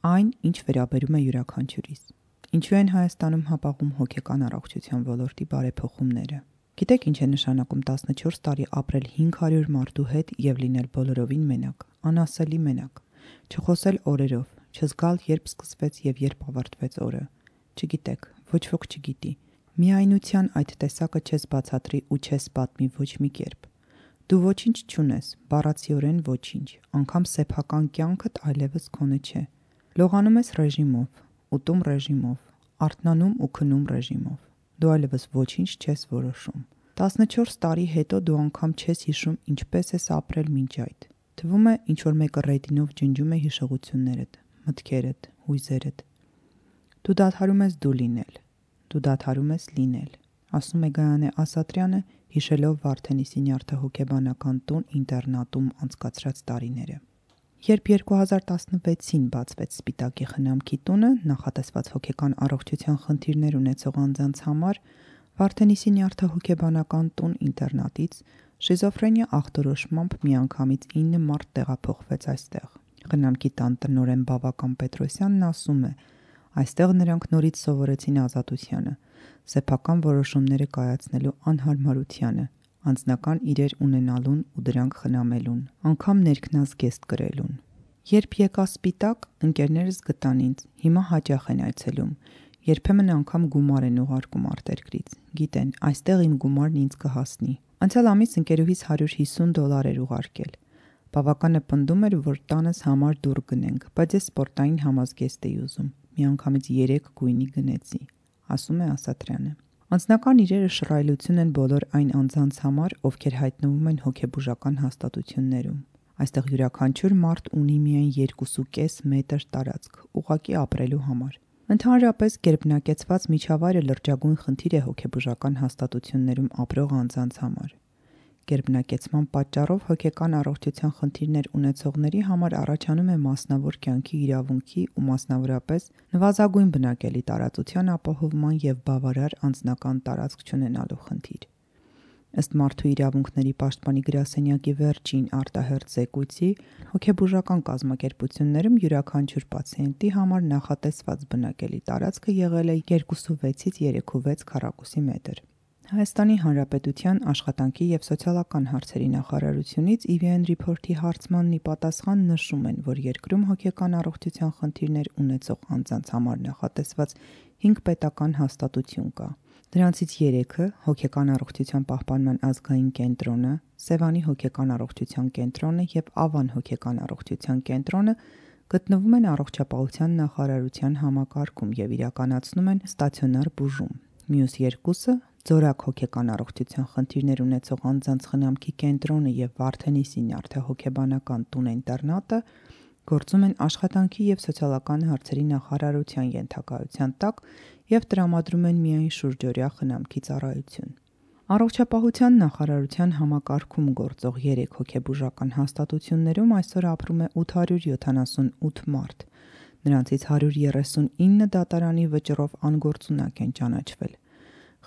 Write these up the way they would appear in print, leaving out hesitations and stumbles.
այն, ինչ վերաբերում է յուրաքանչյուրիս։ Ինչու են Հայաստանում հապաղում հոգեկան առողջության ոլորտի բարեփոխումները։ Գիտեք ինչ է նշանակում 14 տարի ապրել 500 մարդու հետ եւ լինել բոլորովին մենակ, անասելի մենակ, չխոսել օրերով, չզգալ երբ սկսվեց եւ երբ ավարտվեց օրը։ Չգիտեք, ոչ ոք չգիտի։ Միայնության այդ տեսակը չես բացատրի ու չես պատմի ոչ մի կերպ։ Դու ոչինչ չունես, բառացիորեն ոչինչ, անգամ սեփական կյանքդ այլևս քոնը չէ։ Լողանում ես ռեժիմով, ուտում ռեժիմով, արթնանում ու քնում ռեժիմով։ Դու այլևս ոչինչ չես որոշում։ 14 տարի հետո դու անգամ չես հիշում ինչպես ես ապրել մինչ այդ։ Թվում է ինչ-որ մեկը ռեդինով ջնջում է հիշողություններդ, մտքերդ, հույզերդ։ Դու դադարում ես դու լինել, դու դադարում ես լինել, ասում է Գայանե Ասատրյանը, հիշելով Վարդենիսի նյարդահոգեբանական տուն ինտերնատում անցկացրած տարիները։ Երբ 2016-ին բացվեց Սպիտակի խնամքի տունը, նախատեսված հոգեկան առողջության խնդիրներ ունեցող անձանց համար, Վարդենիսի նյարդահոգեբանական տուն ինտերնատից շիզոֆրենիա ախտորոշմամբ միանգամից 9 մարդ տեղափոխվեց այստեղ։ Խնամքի տան տնօրեն Բավական Պետրոսյանն ասում է. այստեղ նրանք նորից սովորեցին ազատությանը, սեփական որոշումները կայացնելու անհարմարությանը, անձնական իրեր ունենալուն ու դրանք խնամելուն, անգամ ներքնազգեստ կրելուն։ Երբ եկա Սպիտակ, ընկերներս գտան ինձ, հիմա հաճախ են այցելում, երբեմն անգամ գումար են ուղարկում արտերկրից, գիտեն, այստեղ իմ գումարն ինձ կհասնի։ Անցյալ ամիս ընկերուհիս $150 էր ուղարկել։ Բավականը պնդում էր, որ տանս համար դուռ գնենք, բայց ես սպորտային համազգեստ էի ուզում, միանգամից 3 գույնի գնեցի, ասում է Ասատրյանը։ Անձնական իրերը շռայլություն են բոլոր այն անձանց համար, ովքեր հայտնվում են հոգեբուժական հաստատություններում։ Այստեղ յուրաքանչյուր մարդ ունի միայն 2.5 մետր տարածք, ուղղակի ապրելու համար։ Ընդհանրապես գերբնակեցված միջավայրը լրջագույն խնդիր է հոգեբուժական հաստատություններում ապրող անձանց համար։ Գերբնակեցման պատճառով հոգեկան առողջության խնդիրներ ունեցողների համար առաջանում է մասնավոր կյանքի իրավունքի ու մասնավորապես նվազագույն բնակելի տարածության ապահովման և բավարար անձնական տարածք չունենալու խնդիր։ Ըստ Մարդու իրավունքների պաշտպանի գրասենյակի վերջին արտահերթ զեկույցի, հոգեբուժական կազմակերպություններում յուրաքանչյուր պացիենտի համար նախատեսված բնակելի տարածքը եղել է 2.6-ից 3.6 քառակուսի մետր։ Հայաստանի Հանրապետության Աշխատանքի և սոցիալական հարցերի նախարարությունից EVN Report-ի հարցմանն ի պատասխան նշում են, որ երկրում հոգեկան առողջության խնդիրներ ունեցող անձանց համար նախատեսված 5 պետական հաստատություն կա։ Դրանցից 3-ը հոգեկան առողջության պահպանման ազգային կենտրոնը, Սևանի հոգեկան առողջության կենտրոնը և Ավան հոգեկան առողջության կենտրոնը գտնվում են առողջապահության նախարարության համակարգում և իրականացնում են ստացիոնար բուժում։ Մյուս 2-ը Ձորակ հոգեկան առողջության խնդիրներ ունեցող անձանց խնամքի կենտրոնը և Վարդենիսի նյարդահոգեբանական տուն-ինտերնատը գործում են Աշխատանքի և սոցիալական հարցերի նախարարության ենթակայության տակ և տրամադրում են միայն շուրջօրյա խնամքի ծառայություն։ Առողջապահության նախարարության համակարգում գործող 3 հոգեբուժական հաստատություններում այսօր ապրում է 878 մարդ, նրանցից 139 դատարանի վճռով անգործունակ են ճանաչվել։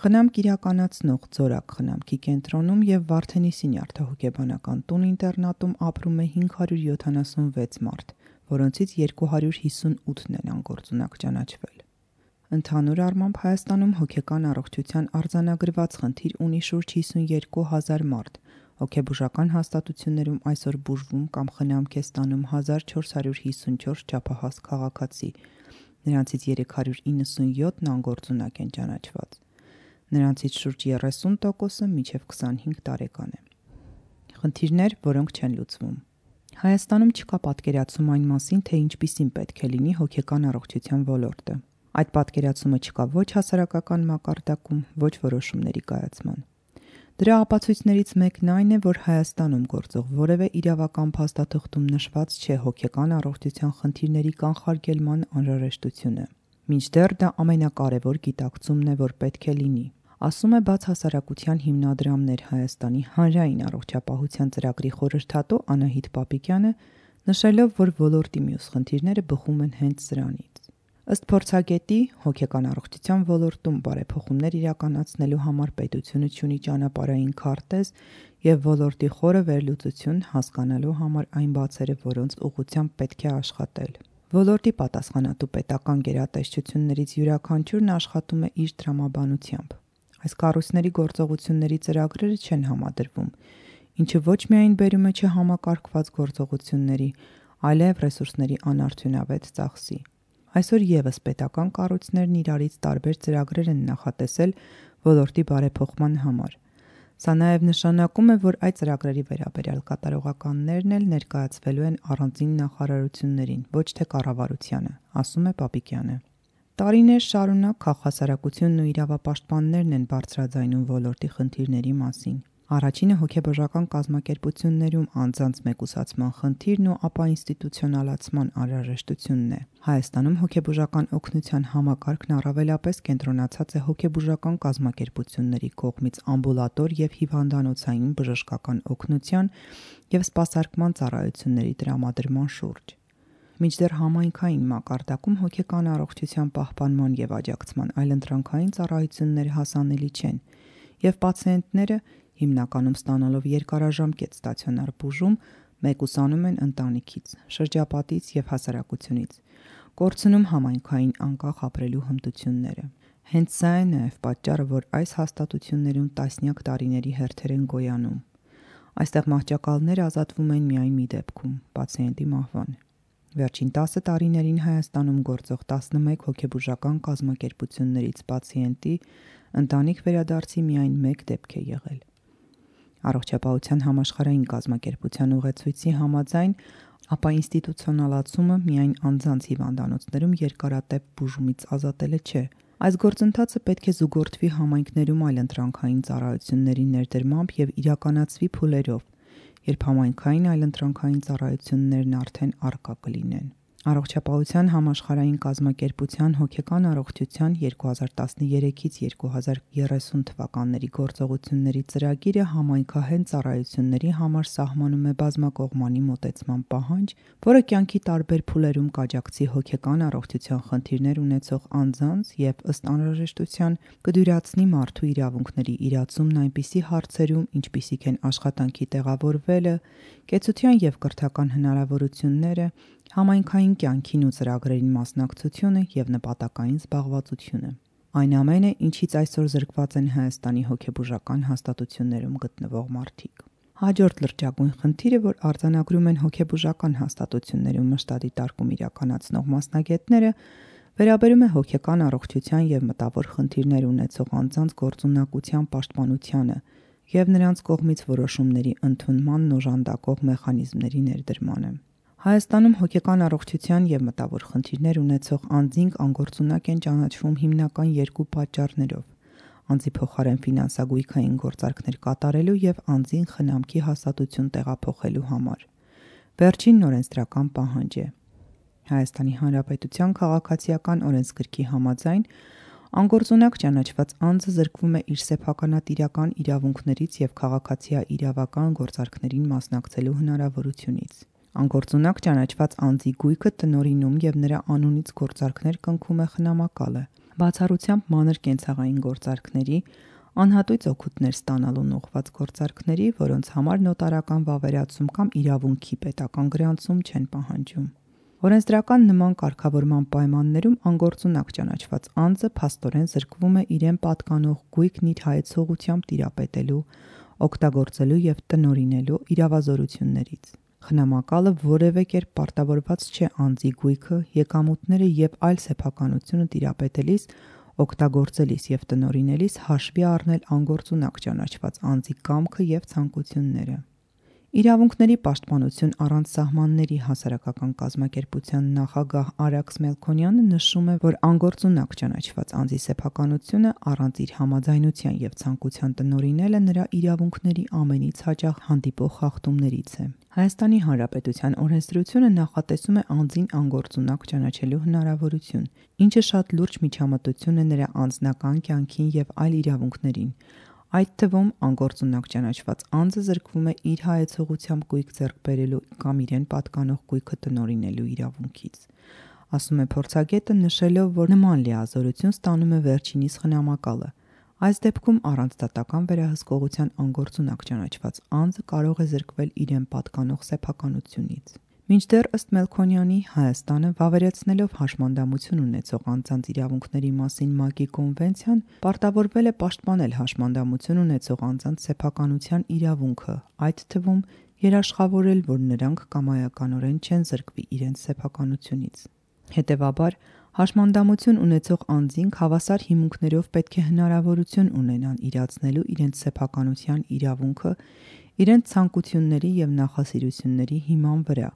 Խնամք իրականացնող Ձորակ խնամքի կենտրոնում և Վարդենիսի նյարդահոգեբանական տուն-ինտերնատում ապրում է 576 մարդ, որոնցից 258-ն են անգործունակ ճանաչվել։ Ընդհանուր առմամբ Հայաստանում հոգեկան առողջության արձանագրված խնդիր ունի շուրջ 52,000 մարդ, հոգեբուժական հաստատություններում այսօր բուժվում կամ խնամք է ստանում 1454 չափահաս քաղաքացի, նրանցից 397-ն անգործունակ են ճանաչված։ Նրանցից շուրջ 30%-ը մինչև 25 տարեկան է։ Խնդիրներ, որոնք չեն լուծվում։ Հայաստանում չկա պատկերացում այն մասին, թե ինչպիսին պետք է լինի հոգեկան առողջության ոլորտը։ Այդ պատկերացումը չկա ոչ հասարակական մակարդակում, ոչ որոշումների կայացման։ Դրա ապացույցներից մեկն այն է, որ Հայաստանում գործող որևէ իրավական փաստաթղթում նշված չէ հոգեկան առողջության խնդիրների կանխարգելման անհրաժեշտությունը։ Մինչդեռ դա ամենակարևոր գիտակցումն է, որ պետք է լինի, ասում է Բաց հասարակության հիմնադրամներ Հայաստանի հանրային առողջապահության ծրագրի խորհրդատու Անահիտ Պապիկյանը, նշելով, որ ոլորտի մյուս խնդիրները բխում են հենց սրանից։ Ըստ փորձագետի, հոգեկան առողջության ոլորտում բարեփոխումներ իրականացնելու համար պետությունը չունի ճանապարհային քարտեզ և ոլորտի խորը վերլուծություն հասկանալու համար այն բացերը, որոնց ուղղությամբ պետք է աշխատել։ Ոլորտի պատասխանատու պետական գերատեսչություններից յուրաքանչյուրն աշխատում է իր տրամաբանությամբ։ Այս կառույցների գործողությունների ծրագրերը չեն համադրվում, ինչը ոչ միայն բերում է չհամակարգված գործողությունների, այլև ռեսուրսների անարդյունավետ ծախսի։ Այսօր ևս պետական կառույցներն իրարից տարբեր ծրագրեր են նախատեսել ոլորտի բարեփոխման համար։ Սա նաև նշանակում է, որ այդ ծրագրերի վերաբերյալ կատարողականներն էլ ներկայացվելու են առանձին նախարարություններին, ոչ թե կառավարությանը, ասում է Պապիկյանը։ Տարիներ շարունակ քաղաքասարակությունն ու իրավապաշտպաններն են բարձրաձայնում ոլորտի խնդիրների մասին։ Առաջինը հոգեբուժական կազմակերպություններում անձանց մեկուսացման խնդիրն ու ապա ինստիտուցիոնալացման անհրաժեշտությունն է։ Հայաստանում հոգեբուժական օգնության համակարգն առավելապես կենտրոնացած է հոգեբուժական կազմակերպությունների կողմից ամբուլատոր և հիվանդանոցային բժշկական օգնության և սպասարկման ծառայությունների տրամադրման շուրջ։ Մինչդեռ համայնքային մակարդակում հոգեկան առողջության պահպանման և աջակցման այլընտրանքային ծառայությունները հասանելի չեն, և պացիենտները, հիմնականում ստանալով երկարաժամկետ ստացիոնար բուժում, մեկուսանում են ընտանիքից, շրջապատից և հասարակությունից, կորցնում համայնքային անկախ ապրելու հմտությունները։ Հենց սա է նաև պատճառը, որ այս հաստատություններում տասնյակ տարիների հերթեր են գոյանում։ Այստեղ մահճակալները ազատվում են միայն մի դեպքում՝ պացիենտի մահվան։ Վերջին 10 տարիներին Հայաստանում գործող 11 հոգեբուժական կազմակերպություններից պացիենտի ընտանիք վերադարձի միայն 1 դեպք է եղել։ Առողջապահության համաշխարհային կազմակերպության ուղեցույցի համաձայն, ապա ինստիտուցիոնալացումը միայն անձանց հիվանդանոցներում երկարատև բուժումից ազատելը չէ։ Այս գործընթացը պետք է զուգորդվի համայնքներում այլընտրանքային ծառայությունների ներդրմամբ և իրականացվի փուլերով, երբ համայնքային այլընտրանքային ծառայություններն արդեն առկա կլինեն։ Առողջապահության համաշխարհային կազմակերպության հոգեկան առողջության 2013-ից 2030 թվականների գործողությունների ծրագիրը համայնքահեն ծառայությունների համար սահմանում է բազմակողմանի մոտեցման պահանջ, որը կյանքի տարբեր փուլերում կաջակցի հոգեկան առողջության խնդիրներ ունեցող անձանց և ըստ անհրաժեշտության կդյուրացնի մարդու իրավունքների իրացումն այնպիսի հարցերում, ինչպիսիք են աշխատանքի տեղավորվելը, կեցության և կրթական հնարավորությունները, համայնքային կյանքին ու ծրագրերին մասնակցությունը և նպատակային զբաղվածությունը։ Այն ամենը, ինչից այսօր զրկված են Հայաստանի հոգեբուժական հաստատություններում գտնվող մարդիկ։ Հաջորդ լրջագույն խնդիրը, որ արձանագրում են հոգեբուժական հաստատություններում մշտադիտարկում իրականացնող մասնագետները, վերաբերում է հոգեկան առողջության և մտավոր խնդիրներ ունեցող անձանց գործունակության պաշտպանությանը և նրանց կողմից որոշումների ընդունմանն օժանդակող մեխանիզմների ներդրմանը։ Հայաստանում հոգեկան առողջության և մտավոր խնդիրներ ունեցող անձինք անգործունակ են ճանաչվում հիմնական երկու պատճառներով՝ անձի փոխարեն ֆինանսագույքային գործարքներ կատարելու և անձին խնամքի հաստատություն տեղափոխելու համար։ Վերջինն օրենսդրական պահանջ է։ Հայաստանի Հանրապետության քաղաքացիական օրենսգրքի համաձայն անգործունակ ճանաչված անձը զրկվում է իր սեփականատիրական իրավունքներից և քաղաքացիաիրավական գործարքներին մասնակցելու հնարավորությունից։ Անգործունակ ճանաչված անձի գույքը տնօրինում և նրա անունից գործարքներ կնքում է խնամակալը, բացառությամբ մանր կենցաղային գործարքների, անհատույց օգուտներ ստանալուն ուղղված գործարքների, որոնց համար նոտարական վավերացում կամ իրավունքի պետական գրանցում չեն պահանջում։ Օրենսդրական նման կարգավորման պայմաններում անգործունակ ճանաչված անձը փաստորեն զրկվում է իրեն պատկանող գույքն իր հայեցողությամբ տիրապետելու, օգտագործելու և տնօրինելու իրավազորություններից։ Խնամակալը որևէ կերպ պարտավորված չէ անձի գույքը, եկամուտները և այլ սեփականությունը տիրապետելիս, օգտագործելիս և տնօրինելիս հաշվի առնել անգործունակ ճանաչված անձի կամքը և ցանկությունները։ Իրավունքների պաշտպանություն առանց սահմանների հասարակական կազմակերպության նախագահ Արաքս Մելքոնյանը նշում է, որ անգործունակ ճանաչված անձի սեփականությունը առանց իր համաձայնության և ցանկության տնօրինելը նրա իրավունքների ամենից հաճախ հանդիպող խախտումներից է։ Հայաստանի Հանրապետության օրենսդրությունը նախատեսում է անձին անգործունակ ճանաչելու հնարավորություն, ինչը շատ լուրջ միջամտություն է նրա անձնական կյանքին և այլ իրավունքներին, այդ թվում անգործունակ ճանաչված անձը զրկվում է իր հայեցողությամբ գույք ձեռք բերելու կամ իրեն պատկանող գույքը տնօրինելու իրավունքից, ասում է փորձագետը, նշելով, որ նման լիազորություն ստանում է վերջինիս խնամակալը։ Այս դեպքում առանց դատական վերահսկողության անգործունակ ճանաչված անձը կարող է զրկվել իրեն պատկանող սեփականությունից։ Մինչդեռ ըստ Մելքոնյանի Հայաստանը վավերացնելով հաշմանդամություն ունեցող անձանց իրավունքների մասին ՄԱԿ-ի կոնվենցիան պարտավորվել է պաշտպանել հաշմանդամություն ունեցող անձանց սեփականության իրավունքը, այդ թվում երաշխավորել, որ նրանք կամայականորեն չեն զրկվի իրենց սեփականությունից։ Հետևաբար, հաշմանդամություն ունեցող անձինք հավասար հիմունքներով պետք է հնարավորություն ունենան իրացնելու իրենց սեփականության իրավունքը իրենց ցանկությունների և նախասիրությունների հիման վրա,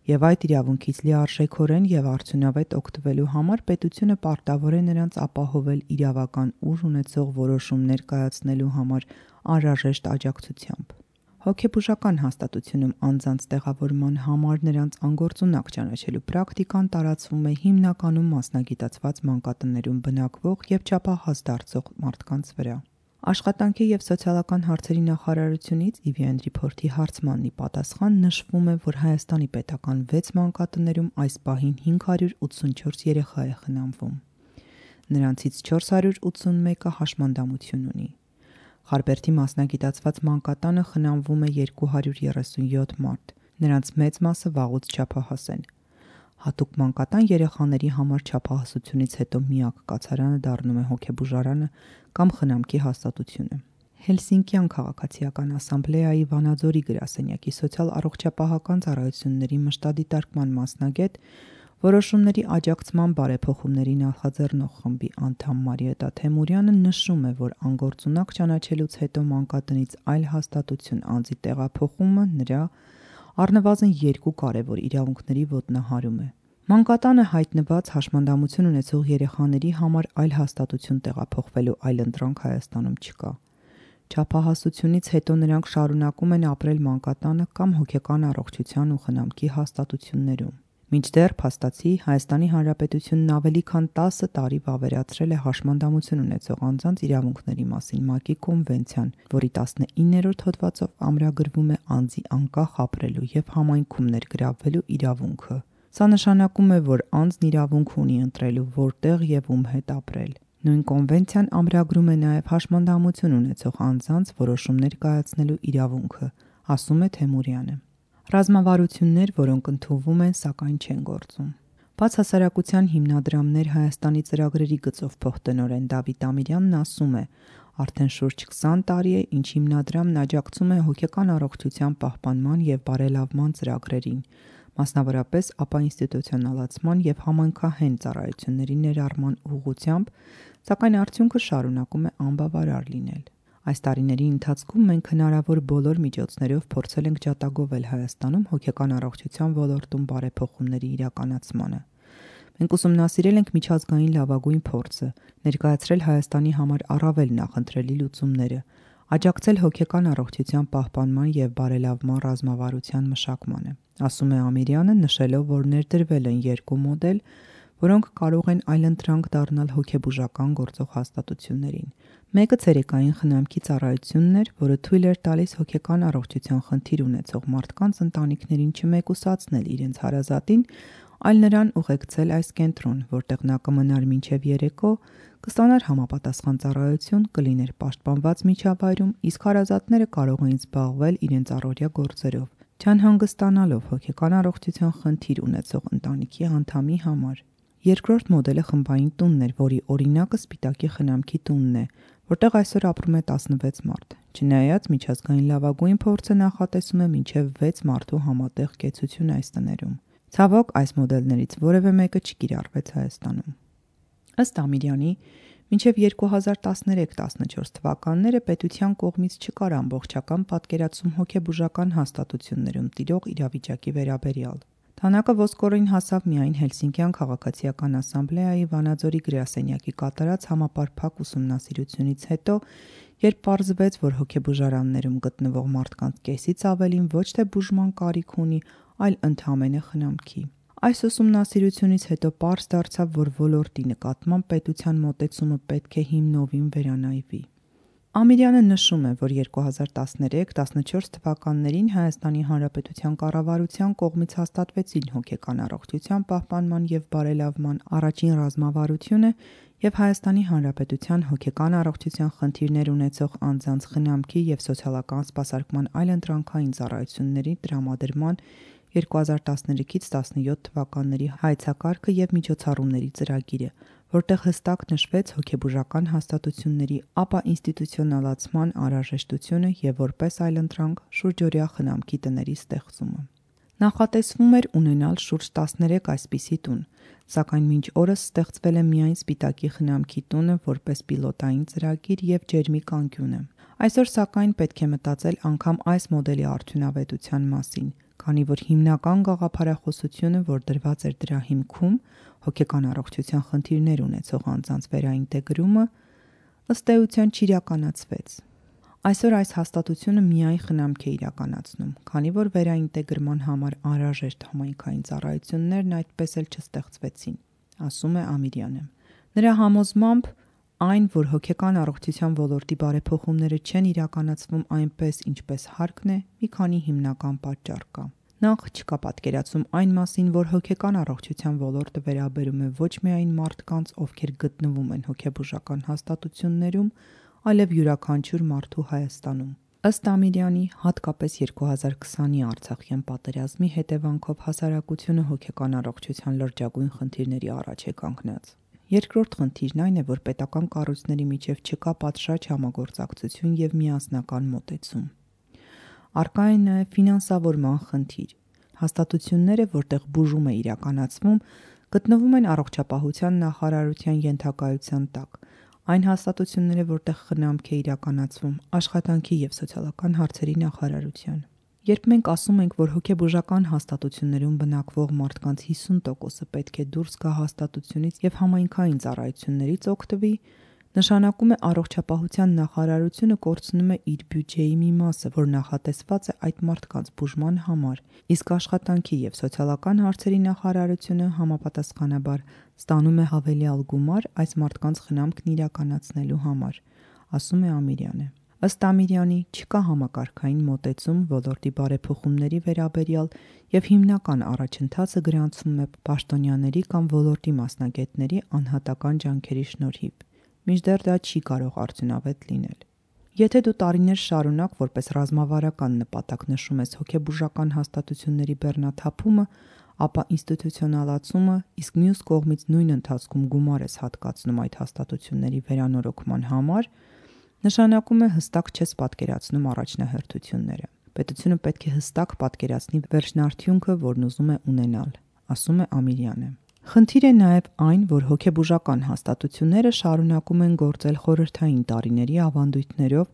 և այդ իրավունքից լիարժեքորեն և արդյունավետ օգտվելու համար պետությունը պարտավոր է նրանց ապահովել իրավական ուժ ունեցող որոշումներ կայացնելու համար անհրաժեշտ աջակցությամբ։ Հոգեբուժական հաստատությունում անձանց տեղավորման համար նրանց անգործունակ ճանաչելու պրակտիկան տարածվում է հիմնականում մասնագիտացված մանկատներում բնակվող և չափահաս դարձող մարդկանց վրա։ Աշխատանքի և սոցիալական հարցերի նախարարությունից EVN Report-ի հարցմանն ի պատասխան նշվում է, որ Հայաստանի պետական 6 մանկատներում այս պահին 584 երեխա է խնամվում։ Նրանցից 481-ը հաշմանդամություն ունի։ Խարբերդի մասնագիտացված մանկատանը խնամվում է 237 մարդ, նրանց մեծ մասը վաղուց չափահաս են։ Հատուկ մանկատան երեխաների համար չափահասությունից հետո միակ կացարանը դառնում է հոգեբուժարանը կամ խնամքի հաստատությունը։ Հելսինկյան քաղաքացիական ասամբլեայի Վանաձորի գրասենյակի սոցիալ-առողջապահական ծառայությունների մշտադիտարկման մասնագետ, որոշումների աջակցման բարեփոխումների նախաձեռնող խմբի անդամ Մարիետա Թեմուրյանը նշում է, որ անգործունակ ճանաչելուց հետո մանկատնից այլ հաստատություն անձի տեղափոխումը նրա առնվազն 2 կարևոր իրավունքների ոտնահարում է։ Մանկատանը հայտնված հաշմանդամություն ունեցող երեխաների համար այլ հաստատություն տեղափոխվելու այլընտրանք Հայաստանում չկա։ Չափահասությունից հետո նրանք շարունակում են ապրել մանկատանը կամ հոգեկան առողջության ու խնամքի հաստատություններում։ Մինչդեռ փաստացի Հայաստանի Հանրապետությունն ավելի քան 10 տարի վավերացրել է հաշմանդամություն ունեցող անձանց իրավունքների մասին ՄԱԿ-ի կոնվենցիան, որի 19-րդ հոդվածով ամրագրվում է անձի անկախ ապրելու և համայնքում ներգրավվելու իրավունքը։ Սա նշանակում է, որ անձն իրավունք ունի ընտրելու որտեղ և ում հետ ապրել։ Նույն կոնվենցիան ամրագրում է նաև հաշմանդամություն ունեցող անձանց որոշումներ կայացնելու իրավունքը, ասում է Թեմուրյանը։ Ռազմավարություններ, որոնք ընդունվում են, սակայն չեն գործում։ Բացհասարակության հիմնադրամներ Հայաստանի ծրագրերի գծով փոխտնօրեն Դավիթ Ամիրյանն ասում է. արդեն շուրջ 20 տարի է, ինչ հիմնադրամն աջակցում է հոգեկան առողջության պահպանման և բարելավման ծրագրերին, մասնավորապես ապաինստիտուցիոնալացման և համայնքահեն ծառայությունների ներառման ուղղությամբ, սակայն արդյունքը շարունակում է անբավարար լինել։ Այս տարիների ընթացքում մենք հնարավոր բոլոր միջոցներով փորձել ենք ջատագովել Հայաստանում հոգեկան առողջության ոլորտում բարեփոխումների իրականացմանը։ Մենք ուսումնասիրել ենք միջազգային լավագույն փորձը, ներկայացրել Հայաստանի համար առավել նախընտրելի լուծումները, աջակցել հոգեկան առողջության պահպանման և բարելավման ռազմավարության մշակմանը, ասում է Ամիրյանը, նշելով, որ ներդրվել են 2 մոդել, որոնք կարող են այլընտրանք դառնալ հոգեբուժական գործող հաստատություններին։ Մեկը ցերեկային խնամքի ծառայությունն էր, որը թույլ էր տալիս հոգեկան առողջության խնդիր ունեցող մարդկանց ընտանիքներին չմեկուսացնել իրենց հարազատին, այլ նրան ուղեկցել այս կենտրոն, որտեղ նա կմնար մինչև երեկո, կստանար համապատասխան ծառայություն, կլիներ պաշտպանված միջավայրում, իսկ հարազատները կարող էին զբաղվել իրենց առօրյա գործերով, չանհանգստանալով հոգեկան առողջության խնդիր ունեցող ընտանիքի անդամի համար։ Երկրորդ մոդելը խմբային տունն էր, որի օրինակը Սպիտակի խնամքի տունն է, որտեղ այսօր ապրում է 16 մարդ։ Չնայած միջազգային լավագույն փորձը նախատեսում է մինչև 6 մարդու համատեղ կեցություն այս տներում։ Ցավոք, այս մոդելներից որևէ մեկը չկիրառվեց Հայաստանում։ Ըստ Ամիրյանի, մինչև 2013-14 թվականները պետության կողմից չկար ամբողջական պատկերացում հոգեբուժական հաստատություններում տիրող իրավիճակի վերաբերյալ։ Թանակը ոսկորին հասավ միայն Հելսինկյան քաղաքացիական ասամբլեայի Վանաձորի գրասենյակի կատարած համապարփակ ուսումնասիրությունից հետո, երբ պարզվեց, որ հոգեբուժարաններում գտնվող մարդկանց կեսից ավելին ոչ թե բուժման կարիք ունի, այլ ընդամենը խնամքի։ Այս ուսումնասիրությունից հետո պարզ դարձավ, որ ոլորտի նկատմամբ պետության մոտեցումը պետք է հիմնովին վերանայվի։ Ամիրյանը նշում է, որ 2013-14 թվականներին Հայաստանի Հանրապետության կառավարության կողմից հաստատվեցին հոգեկան առողջության պահպանման և բարելավման առաջին ռազմավարությունը և Հայաստանի Հանրապետության հոգեկան առողջության խնդիրներ ունեցող անձանց խնամքի և սոցիալական սպասարկման այլընտրանքային ծառայությունների տրամադրման 2013-ից 17 թվականների հայեցակարգը եւ միջոցառումների ծրագիրը, որտեղ հստակ նշվեց հոգեբուժական հաստատությունների ապաինստիտուցիոնալացման անհրաժեշտությունը եւ որպես այլընտրանք շուրջօրյա խնամքի տների ստեղծումը։ Նախատեսվում էր ունենալ շուրջ 13 այսպիսի տուն, սակայն մինչ օրս ստեղծվել է միայն Սպիտակի խնամքի տունը որպես պիլոտային ծրագիր եւ ջերմի կանկյունը։ Այսօր սակայն պետք է մտածել անգամ այս մոդելի արդյունավետության մասին, քանի որ հիմնական գաղափարախոսությունը, որ դրված էր դրա հիմքում, հոգեկան առողջության խնդիրներ ունեցող անձանց վերաինտեգրումը, ըստ էության չիրականացվեց։ Այսօր այս հաստատությունը միայն խնամք է իրականացնում, քանի որ վերաինտեգրման համար անհրաժեշտ համայնքային ծառայություններն այդպես էլ չստեղծվեցին, ասում է Ամիրյանը։ Նրա համոզմամբ այն, որ հոգեկան առողջության ոլորտի բարեփոխումները չեն իրականացվում այնպես, ինչպես հարկն է, մի քանի հիմնական պատճառ կա։ Նախ չկա պատկերացում այն մասին, որ հոգեկան առողջության ոլորտը վերաբերում է ոչ միայն մարդկանց, ովքեր գտնվում են հոգեբուժական հաստատություններում, այլև յուրաքանչյուր մարդու Հայաստանում։ Ըստ Ամիրյանի, հատկապես 2020-ի Արցախյան պատերազմի հետևանքով հասարակությունը հոգեկան առողջության լրջագույն խնդիրների առաջ է կանգնած։ Երկրորդ խնդիրն այն է, որ պետական կառույցների միջև չկա պատշաճ համագործակցություն եւ միասնական մոտեցում։ Առկա է նաեւ ֆինանսավորման խնդիր։ Հաստատությունները, որտեղ բուժում է իրականացվում, գտնվում են առողջապահության նախարարության ենթակայության տակ։ Այն հաստատությունները, որտեղ խնամք է իրականացվում, աշխատանքի եւ սոցիալական հարցերի նախարարության։ Երբ մենք ասում ենք, որ հոգեբուժական հաստատություններում բնակվող մարդկանց 50%-ը պետք է դուրս գա հաստատությունից եւ համայնքային ծառայություններից օգտվի, նշանակում է առողջապահության նախարարությունը կորցնում է իր բյուջեի մի մասը, որ նախատեսված է այդ մարդկանց բուժման համար, իսկ աշխատանքի եւ սոցիալական հարցերի նախարարությունը համապատասխանաբար ստանում է հավելյալ գումար այս մարդկանց խնամքն իրականացնելու համար, ասում է Ամիրյանը։ Ըստ Ամիրյանի, չկա համակարգային մոտեցում ոլորտի բարեփոխումների վերաբերյալ եւ հիմնական առաջընթացը գրանցվում է պաշտոնյաների կամ ոլորտի մասնագետների անհատական ջանքերի շնորհիվ, մինչդեռ դա չի կարող արդյունավետ լինել։ Եթե դու տարիներ շարունակ որպես ռազմավարական նպատակ նշում ես հոգեբուժական հաստատությունների բեռնաթափումը, ապա ինստիտուցիոնալացումը, իսկ մյուս կողմից նույն ընթացքում գումար ես հատկացնում այդ հաստատությունների վերանորոգման համար, նշանակում է հստակ չես պատկերացնում առաջնահերթությունները։ Պետությունը պետք է հստակ պատկերացնի վերջնարդյունքը, որն ուզում է ունենալ, ասում է Ամիրյանը։ Խնդիր է նաև այն, որ հոգեբուժական հաստատությունները շարունակում են գործել խորհրդային տարիների ավանդույթներով,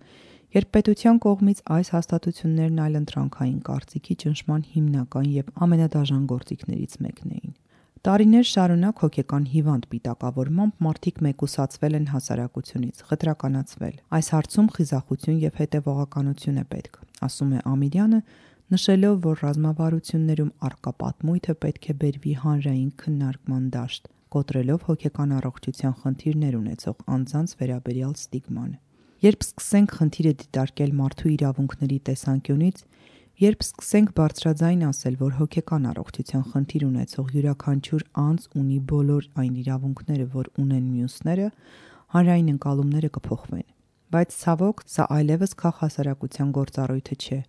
երբ պետության կողմից այս հաստատություններն այլընտրանքային կարծիքի ճնշման հիմնական եւ ամենադաժան գործիքներից մեկն էին։ Տարիներ շարունակ հոգեկան հիվանդ պիտակավորմամբ մարդիկ մեկուսացվել են հասարակությունից, խտրականացվել։ Այս հարցում խիզախություն եւ հետեւողականություն է պետք, ասում է Ամիրյանը, նշելով, որ ռազմավարություններում առկա պատմույթը պետք է բերվի հանրային քննարկման դաշտ, կոտրելով հոգեկան առողջության խնդիրներ ունեցող անձանց վերաբերյալ ստիգման։ Երբ սկսենք խնդիրը դիտարկել մարդու իրավունքների տեսանկյունից, երբ սկսենք բարձրաձայն ասել, որ հոգեկան առողջության խնդիր ունեցող յուրաքանչյուր անձ ունի բոլոր այն իրավունքները, որ ունեն մյուսները, հանրային ընկալումները կփոխվեն։ Բայց ցավոք, սա այլևս քաղաքասարակության գործառույթը չէ։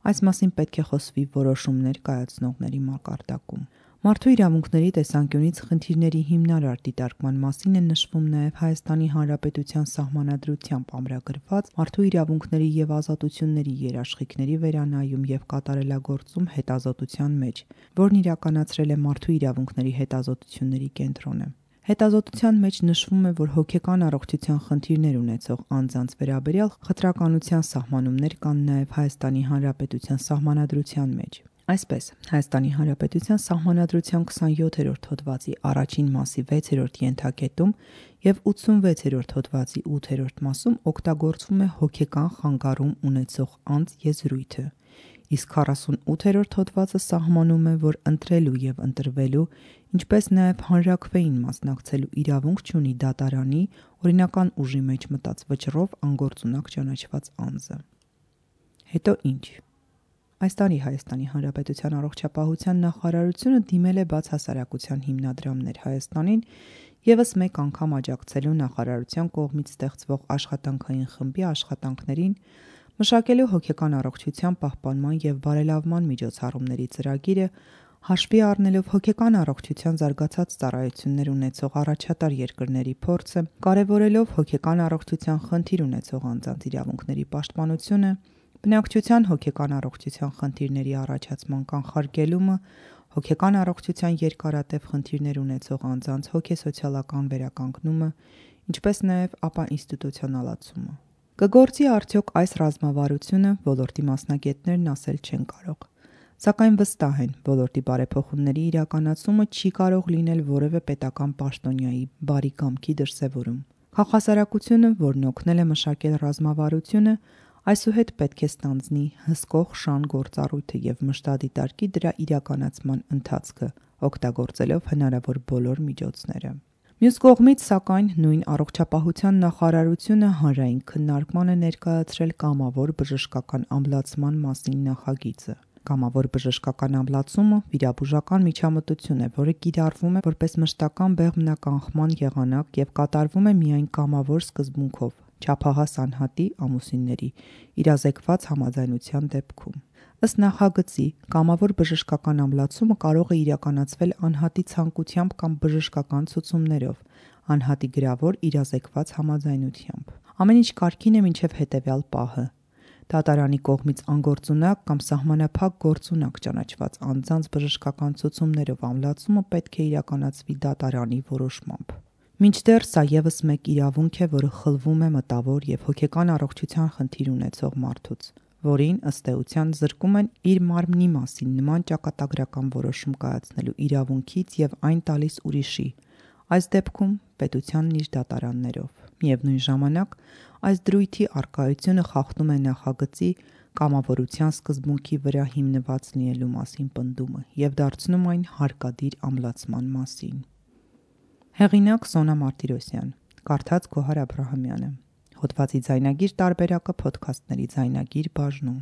Այս մասին պետք է խոսվի որոշումներ կայացնողների մակարդակում։ Մարդու իրավունքների տեսանկյունից խնդիրների հիմնարար դիտարկման մասին է նշվում նաև Հայաստանի Հանրապետության Սահմանադրությամբ ամրագրված մարդու իրավունքների եւ ազատությունների երաշխիքների վերանայում եւ կատարելագործում հետազոտության մեջ, որն իրականացրել է Մարդու իրավունքների հետազոտությունների կենտրոնը։ Հետազոտության մեջ նշվում է, որ հոգեկան առողջության խնդիրներ ունեցող անձանց վերաբերյալ խտրականության սահմանումներ կան նաև Հայաստանի Հանրապետության Սահմանադրության մեջ։ Այսպես, Հայաստանի Հանրապետության Սահմանադրության 27-րդ հոդվածի առաջին մասի 6-րդ ենթակետում եւ 86-րդ հոդվածի 8-րդ մասում օգտագործվում է հոգեկան խանգարում ունեցող անձ եզրույթը, իսկ 48-րդ հոդվածը սահմանում է, որ ընտրելու եւ ընտրվելու, ինչպես նաեւ հանրաքվեին մասնակցելու իրավունք չունի դատարանի օրինական ուժի մեջ մտած վճռով անգործունակ ճանաչված անձը։ Հետո ինչ։ Այս տարի Հայաստանի Հանրապետության առողջապահության նախարարությունը դիմել է բացհասարակության հիմնադրամներ Հայաստանին եւս մեկ անգամ աջակցելու նախարարության կողմից ստեղծվող աշխատանքային խմբի աշխատանքներին, Մշակելու հոգեկան առողջության պահպանման եւ բարելավման միջոցառումների ծրագիրը հաշվի առնելով հոգեկան առողջության զարգացած ծառայություններ ունեցող առաջատար երկրների փորձը, կարևորելով հոգեկան առողջության խնդիր ունեցող անձանց իրավունքների պաշտպանությունը, բնակչության հոգեկան առողջության խնդիրների առաջացման կանխարգելումը, հոգեկան առողջության երկարատև խնդիրներ ունեցող անձանց հոգեսոցիալական վերականգնումը, ինչպես նաև ինստիտուցիոնալացումը։ Կգործի արդյոք այս ռազմավարությունը, ոլորտի մասնագետներն ասել չեն կարող։ Սակայն վստահ են, ոլորտի բարեփոխումների իրականացումը չի կարող լինել որևէ պետական պաշտոնյայի բարի կամքի դրսևորում։ Քաղաքասարակությունը, որն օգնել է մշակել ռազմավարությունը, այսուհետ պետք է ստանձնի հսկող շան գործառույթը եւ մշտադիտարկի դրա իրականացման ընթացքը, օգտագործելով հնարավոր բոլոր միջոցները։ Մյուս կողմից, սակայն, նույն առողջապահության նախարարությունը հանրային քննարկման է ներկայացրել կամավոր բժշկական ամբլացման մասին նախագիծը։ Կամավոր բժշկական ամբլացումը վիրաբուժական միջամտություն է, որը կիրառվում է որպես մշտական բեղմնականխման եղանակ եւ կատարվում է միայն կամավոր սկզբունքով, չափահաս անհատի ամուսինների իրազեկված համաձայնության դեպքում։ Ըստ նախագծի, կամավոր բժշկական ամբլացումը կարող է իրականացվել անհատի ցանկությամբ կամ բժշկական ցուցումներով, անհատի գրավոր իրազեկված համաձայնությամբ։ Ամեն ինչ կարգին է մինչև հետևյալ պահը։ Դատարանի կողմից անգործունակ կամ սահմանափակ գործունակ ճանաչված անձանց բժշկական ցուցումներով ամբլացումը պետք է իրականացվի դատարանի որոշմամբ։ Մինչդեռ սա եւս մեկ իրավունք է, որը խլվում է մտավոր եւ հոգեկան առողջության խնդիր ունեցող մարդուց, որին ըստ էության զրկում են իր մարմնի մասին նման ճակատագրական որոշում կայացնելու իրավունքից եւ այն տալիս ուրիշի, այս դեպքում պետությանն իր դատարաններով։ Միևնույն ժամանակ, այս դրույթի առկայությունը խախտում է նախագծի կամավորության սկզբունքի վրա հիմնված լինելու մասին պնդումը եւ դարձնում այն հարկադիր ամբլացման մասին։ Հեղինակ Սոնա Մարտիրոսյան, կարդաց Գոհար Աբրահամյանը։ Հոդվածի ձայնագիր տարբերակը Փոդքասթների ձայնագիր բաժնում։